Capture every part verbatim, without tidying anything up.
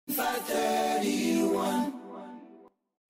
five thirty-one.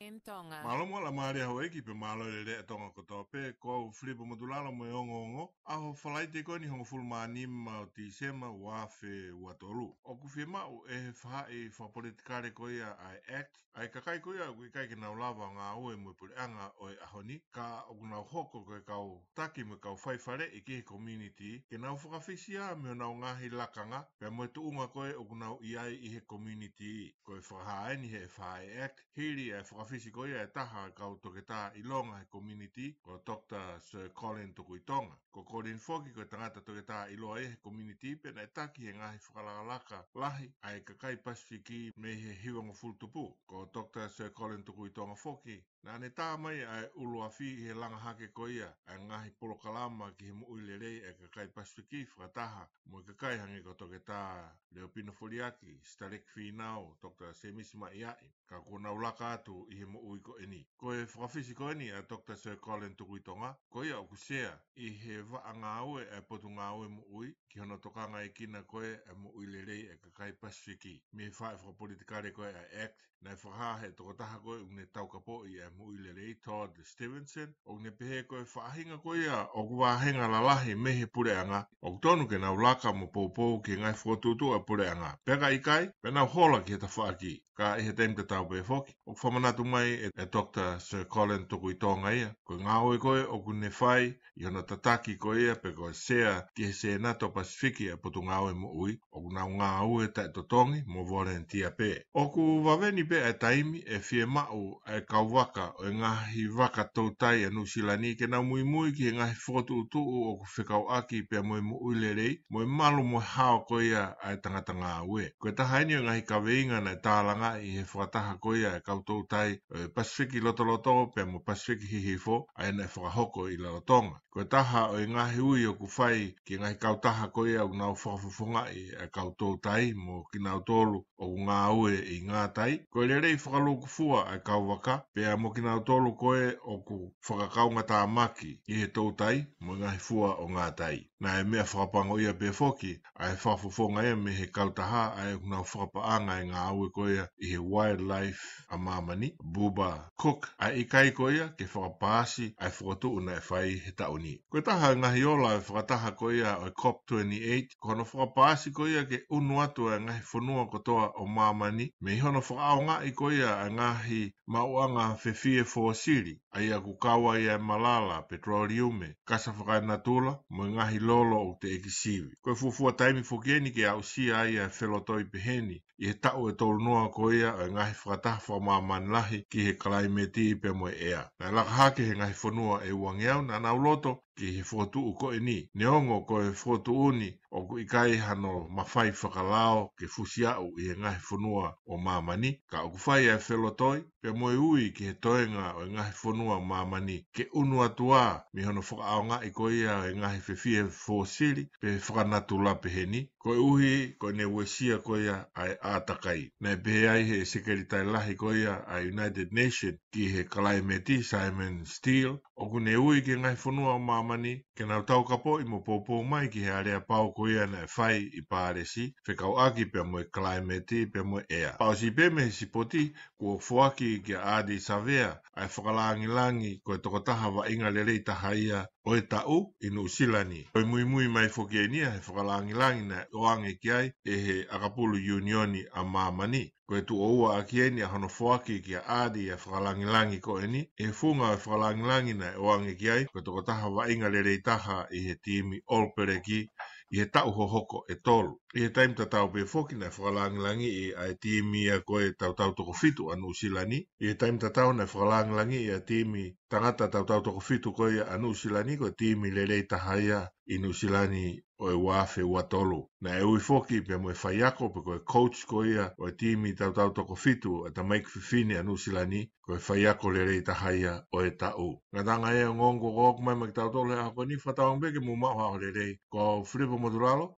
M Tonga. Mālō mo e laumālie ʻa houʻeiki pea mālō e lelei ʻa Tonga kotoa pē, ko au Filipo Motulalo mo e ongoongo, ʻaho Falaite ko eni hongofulu mā nima ʻo Tīsema ua afe ua tolu. ʻOku fiemaʻu ʻe he faʻahi fakapolitikale ko ia ʻa e ACT, ʻa e kakai ko ia ʻoku ʻikai ke nau lava ʻo ngāue mo e puleʻanga ʻo e ʻaho ni, ka ʻoku nau hoko ko e kau taki mo e kau faifaleʻi ki he community, ke nau fakafisi ā mei honau ngaahi lakanga, pea mo e tuʻunga ko ē ʻoku nau ʻi ai ʻi he community. Ko e fakahā eni ʻe he faʻahi ACT, hili ʻa e fakafisi ko ia ʻe taha ʻa e kau toketā ʻilonga he community, ko Doctor Sir Colin Tukuitonga. Ko Colin foki ko e tangata toketā ʻiloa ia he community pea naʻe taki he ngaahi fakalakalaka lahi ʻa e kakai Pasifiki mei he hivangofulu tupu. Ko Doctor Sir Colin Tukuitonga foki, naʻa ne tā mai ʻa e ʻuluafi ʻi he langa hake ko ia ʻa e ngaahi polokalama ki he moʻui lelei ʻa e kakai Pasifiki fakataha mo e kakai hangē ko Toketā Leopino Foliaki, Sitaleki Fīnau, Doctor Semisi Maʻiaʻi, ka kuo nau laka atu ʻi he moʻui ko eni. Ko e fakafisi ko eni ʻa Doctor Sir Colin Tukuitonga, ko ia ʻoku sea ʻi he vaʻa ngāue ʻa e Potungāue Moʻui, ki hono tokangaekina ko ē ʻa e moʻui lelei ʻa e kakai Pasifiki. Mei he faʻahi fakapolitikale ko ē ʻa e ACT, naʻe fakahā ʻe he tokotaha ko ē ʻoku ne taukapoʻi ʻa e moʻui lelei, Todd Stevenson, ʻoku ne pehē ko e faʻahinga ko ia ʻoku vāhenga lalahi mei he puleʻanga, ʻoku tonu ke nau laka mo poupou ki he ngaahi fokotuʻutuʻu ʻa e puleʻanga. Pea ka ʻikai, pea nau hola ki he tafaʻaki. Ka ʻi he taimi tatau pē foki, ʻoku fakamanatu mai ʻe, ʻe Doctor Sir Colin Tukuitonga ia, ko e ngāue ko ē ʻoku ne fai ʻi hono tataki ko ia pe ko e sea ki he Sēnate Pasifiki ʻa e Potungāue Moʻui, ʻoku nau ngāue taʻetotongi mo volunteer pē. ʻOku vave ni pē ʻa e taimi ʻe fiemaʻu ʻa e kau vaka ʻo e ngaahi vaka toutai ʻa Nuʻusila ni ke nau muimui ki he ngaahi fokotuʻutuʻu ʻoku fekauʻaki pea mo e moʻui lelei, mo e malu mo e hao ko ia ʻa e tangata ngāue. Ko e taha eni ʻo e ngaahi kaveinga naʻe tālangaʻi ʻe he fakataha ko ia ʻa e kau toutai ʻo e Pasifiki Lotoloto pea mo Pasifiki Hihifo, ʻa ia naʻe fakahoko ʻi Rarotonga. Ko e taha ʻo e ngaahi ui ʻoku fai ki he ngaahi kautaha ko ia ʻoku nau fakafofongaʻi ʻa e kau toutai mo kinautolu ʻoku ngāue ʻi ngātai, ko e lelei fakalūkufua ʻa e kau vaka, pea mo kinautolu ko ē ʻoku fakakaungatāmaki ʻi he toutai mo e ngaahi fua ʻo ngātai. Naʻe meʻa fakapango ia pē foki ʻa e fakafofonga ia mei he kautaha ʻa ē ʻoku nau fakapaʻanga e ngāue ko ia ʻi he wildlife ʻa māmani, Buba Cook, ʻa e ʻikai ko ia ke fakapaasi ʻa e fokotuʻu naʻe fai he taʻu ni. Ko e taha e ngaahi ola e fakataha ko ia ʻo e COP twenty-eight, ko hono fakapaasi ko ia ke ʻunu atu ʻa e ngaahi fonua kotoa ʻo māmani, mei hono fakaʻaongaʻi ko ia ʻa e ngaahi maʻuʻanga fefie fōsili, ʻa ia ʻoku kau ai ʻa e malala, petroliume, kasa fakaenatula, mo e ngaahi lolo ʻoku teʻeki sivi. Ko e fuofua taimi foki eni ke aʻusia ai ʻa e felotoi peheni, ʻi he taʻu ʻe tolu noa ko ia ʻo e ngaahi fakataha fakamāmani lahi ki he kalaimeti pea mo e ʻea. Naʻe laka hake he ngaahi fonua ʻe uangeau naʻa nau loto ki he fokotuʻu ko eni. Neongo ko e fokotuʻu ni ʻoku ʻikai hano mafai fakalao ke fusi aʻu ʻi he ngaahi fonua ʻo māmani, ka ʻoku fai ʻa e felotoi pea mo e ui ki he toenga ʻo e ngaahi fonua ʻo māmani ke ʻunu atu ā mei hono fakaʻaongaʻi ko ia ʻo e ngaahi fefie fōsili pe fakanatula peheni, koeʻuhi ko ʻene uesia ko ia ʻa e ʻātakai. Naʻe pehē ai ʻe he Sekelitali Lahi ko ia ʻa e United Nations ki he kalaimeti, Simon Stiell, ʻoku ne ui ki he ngaahi fonua ʻo māmani ke nau taukapoʻi mo poupou mai ki he aleapau ko ia naʻe fai ʻi Pālesi, fekauʻaki pea mo e kalaimeti pea mo e ʻea. Fakaʻosi pē mei he sipoti, kuo foaki kia Ardie Savea ʻa e fakalāngilangi ko e tokotaha vaʻinga lelei taha ia ʻo e taʻu ʻi Nuʻusila ni. Ko e muimui mai foki eni ia he fakalāngilangi naʻe ʻoange ki ai ʻe he ʻakapulu ʻiunioni ʻa māmani. Ko e tuʻo ua ʻaki eni ʻa hono foaki kia Ardie ʻa e fakalāngilangi ko eni, ʻi he funga ʻo e fakalāngilangi naʻe ʻoange ki ai ko e tokotaha vaʻinga lelei taha ʻi he timi All Blacks ʻi he taʻu hohoko ʻe tolu. ʻI he taimi tatau pē foki naʻe fakalāngilangiʻi ʻa e timi ia ko e tautau toko fitu ʻa Nuʻusila ni. ʻI he taimi tatau naʻe fakalāngilangiʻi ʻa e timi tangata tautau toko fitu ko ia ʻa Nuʻusila ni ko e timi lelei taha ia ʻi Nuʻusila ni ʻo e ua afe ua tolu. Naʻe ui foki pea mo e faiako pe ko e coach ko ia ʻo e timi tautau toko fitu ʻa e tamaiki fefine ʻa Nuʻusila ni, ko e faiako lelei taha ia ʻo e taʻu. Ngataʻanga e ongoongo kuo ʻomai maʻa kitautolu he ʻaho ko eni, fakatauange pē ke mou maʻu ha ʻaho lelei. Ko au Filipo Motulalo,